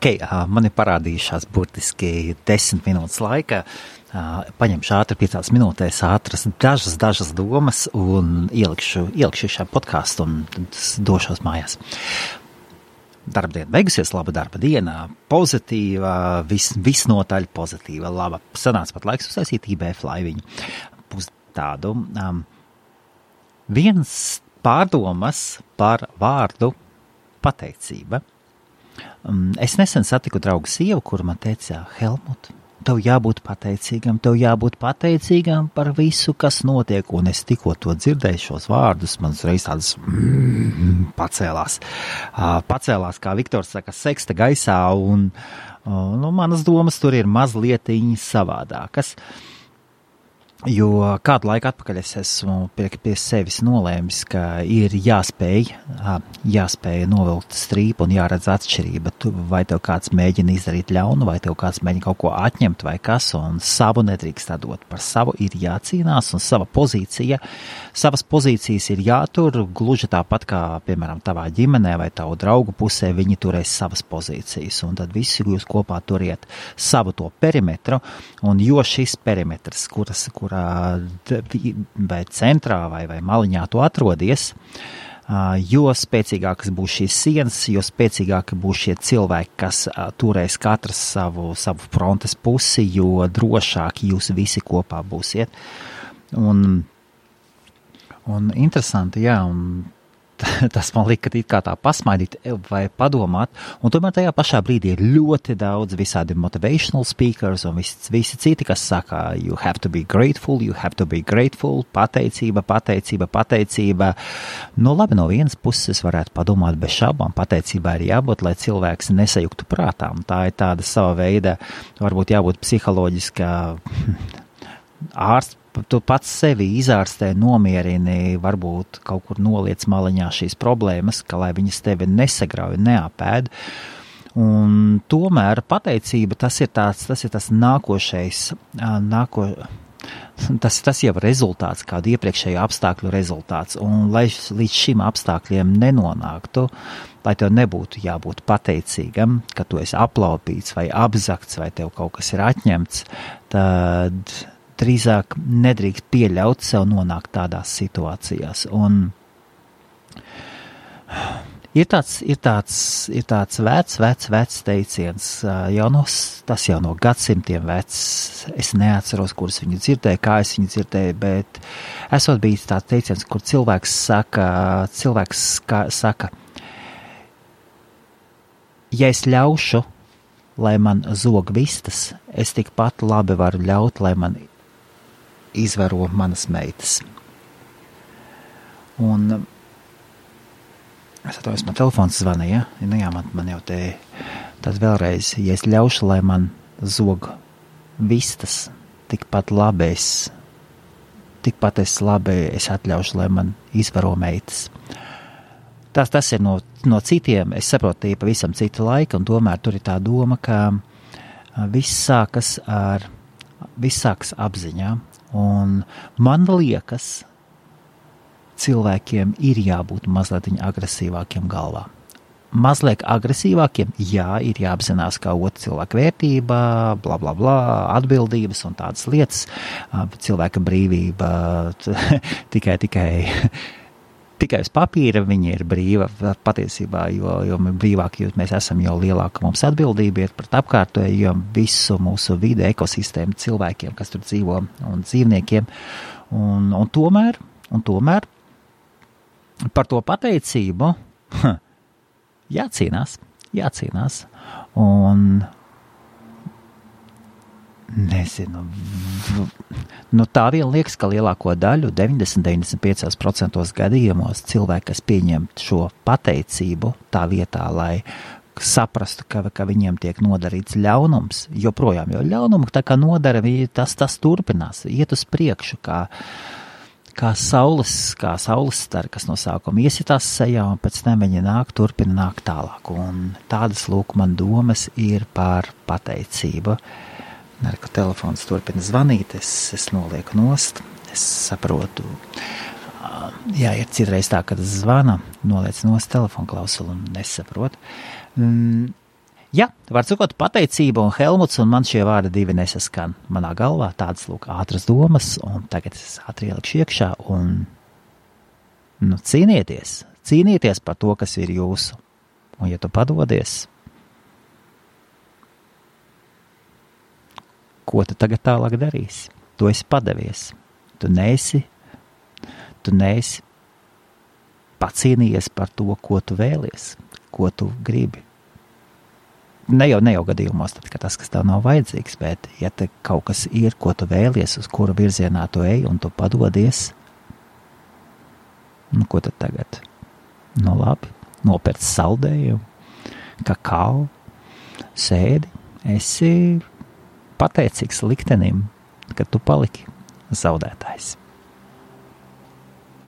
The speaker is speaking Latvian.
Man ir parādījušās burtiski 10 minūtes laika. Paņemšu ātri 5 minūtēs ātras dažas domas un ielikšu šā podcastu un tad došos mājās. Darbdiena beigusies, laba darba diena, pozitīva, visnotaļ pozitīva, laba. Sanāca pat laiks uztaisīt IBF laiviņu. Būs tādu. Viens pārdomas par vārdu pateicība. Es nesen satiku draugu sievu, kur man teica, Helmut, tev jābūt pateicīgam par visu, kas notiek, un es tikko to dzirdēju šos vārdus, man uzreiz tādas pacēlās, kā Viktors saka, seksta gaisā, un manas domas tur ir mazlietiņi savādākas. Jo kādu laiku atpakaļ es esmu pie sevis nolēmis, ka ir jāspēj novilkt strīpu un jāredz atšķirība. Vai tev kāds mēģina izdarīt ļaunu, vai tev kāds mēģina kaut ko atņemt vai kas, un savu nedrīkst dot. Par savu ir jācīnās, un savas pozīcijas ir jātur, gluži tāpat kā, piemēram, tavā ģimenē vai tavu draugu pusē, viņi turēs savas pozīcijas, un tad visi jūs kopā turiet savu to perimetru, un jo šis perimetrs, vai centrā vai maliņā tu atrodies, jo spēcīgākas būs šīs sienas, jo spēcīgāki būs šie cilvēki, kas turēs katrs savu frontes pusi, jo drošāk jūs visi kopā būsiet. Un interesanti, jā, un tas man lika it kā tā pasmaidīt vai padomāt, un tomēr tajā pašā brīdī ir ļoti daudz visādi motivational speakers un visi citi, kas saka, you have to be grateful, pateicība. Nu labi, no vienas puses varētu padomāt bez šaubām, pateicībā ir jābūt, lai cilvēks nesajuktu prātā, un tā ir tāda sava veida, varbūt jābūt psiholoģiskā ārsts, tu pats sevi izārstē, nomierini, varbūt kaut kur noliec maliņā šīs problēmas, ka lai viņas tevi nesagrauj, neapēd. Un tomēr pateicība, tas ir tas nākošais, tas jau rezultāts, kādu iepriekšējo apstākļu rezultāts. Un lai līdz šim apstākļiem nenonāktu, lai tev nebūtu jābūt pateicīgam, ka tu esi aplaupīts vai apzakts vai tev kaut kas ir atņemts, tad drīzāk nedrīkst pieļaut sev nonākt tādās situācijās. Un ir tāds vecs teiciens, tas jau no gadsimtiem vecs, es neatceros, kurus viņu dzirdēju, kā es viņu dzirdēju, bet esot bijis tāds teiciens, kur cilvēks saka, ja es ļaušu, lai man zog vistas, es tikpat labi varu ļaut, lai man izvaro manas meitas. Un es atceros, man telefons zvanīja, nu jā, man jau te, tad vēlreiz, ja es ļaušu, lai man zog vistas, tikpat labi es atļaušu, lai man izvaro meitas. Tas ir no citiem, es saprotu, tie pavisam cita laika, un tomēr tur ir tā doma, ka viss sākas apziņā, un man liekas, cilvēkiem ir jābūt mazliet agresīvākiem galvā. Mazliet agresīvākiem, jā, ir jāapzinās, kā otra cilvēka vērtība, bla, bla, bla, atbildības un tādas lietas, cilvēka brīvība tikai uz papīra viņa ir brīva patiesībā, jo brīvāk mēs esam, jo lielāka mums atbildība ir pret apkārtējo visu mūsu vidi, ekosistēmu, cilvēkiem, kas tur dzīvo un dzīvniekiem. Un tomēr par to pateicību jācīnās. Un nezinu, tā vien liekas, ka lielāko daļu, 90-95% gadījumos cilvēki, kas pieņem šo pateicību tā vietā, lai saprastu, ka viņiem tiek nodarīts ļaunums, joprojām, jo ļaunumu tā kā nodara, tas turpinās, iet uz priekšu, kā saules stari, kas no sākuma iesitās sejā, un pēc tam viņi turpina nākt tālāk. Un tādas lūk man domas ir par pateicību. Ka telefons turpina zvanīt, es nolieku nost, es saprotu, jā, ir citreiz tā, kad zvana, noliec nost telefonu klausulu un nesaprotu. Jā, var sakot, pateicība un Helmuts, un man šie vārdi divi nesaskan manā galvā, tādas, lūk, ātras domas, un tagad es ātri ielikšu iekšā, un, cīnieties par to, kas ir jūsu, un ja tu padodies, ko tu tagad tālāk darīsi? Tu esi padevies, tu neesi pacīnījies par to, ko tu vēlies, ko tu gribi. Ne jau gadījumos, tad, ka tas, kas tev nav vajadzīgs, bet ja te kaut kas ir, ko tu vēlies, uz kura virzienā tu ej, un tu padodies, ko tad tagad? Labi, nopērc saldējumu, kakao, sēdi, esi pateicīgs liktenim, ka tu paliki zaudētājs.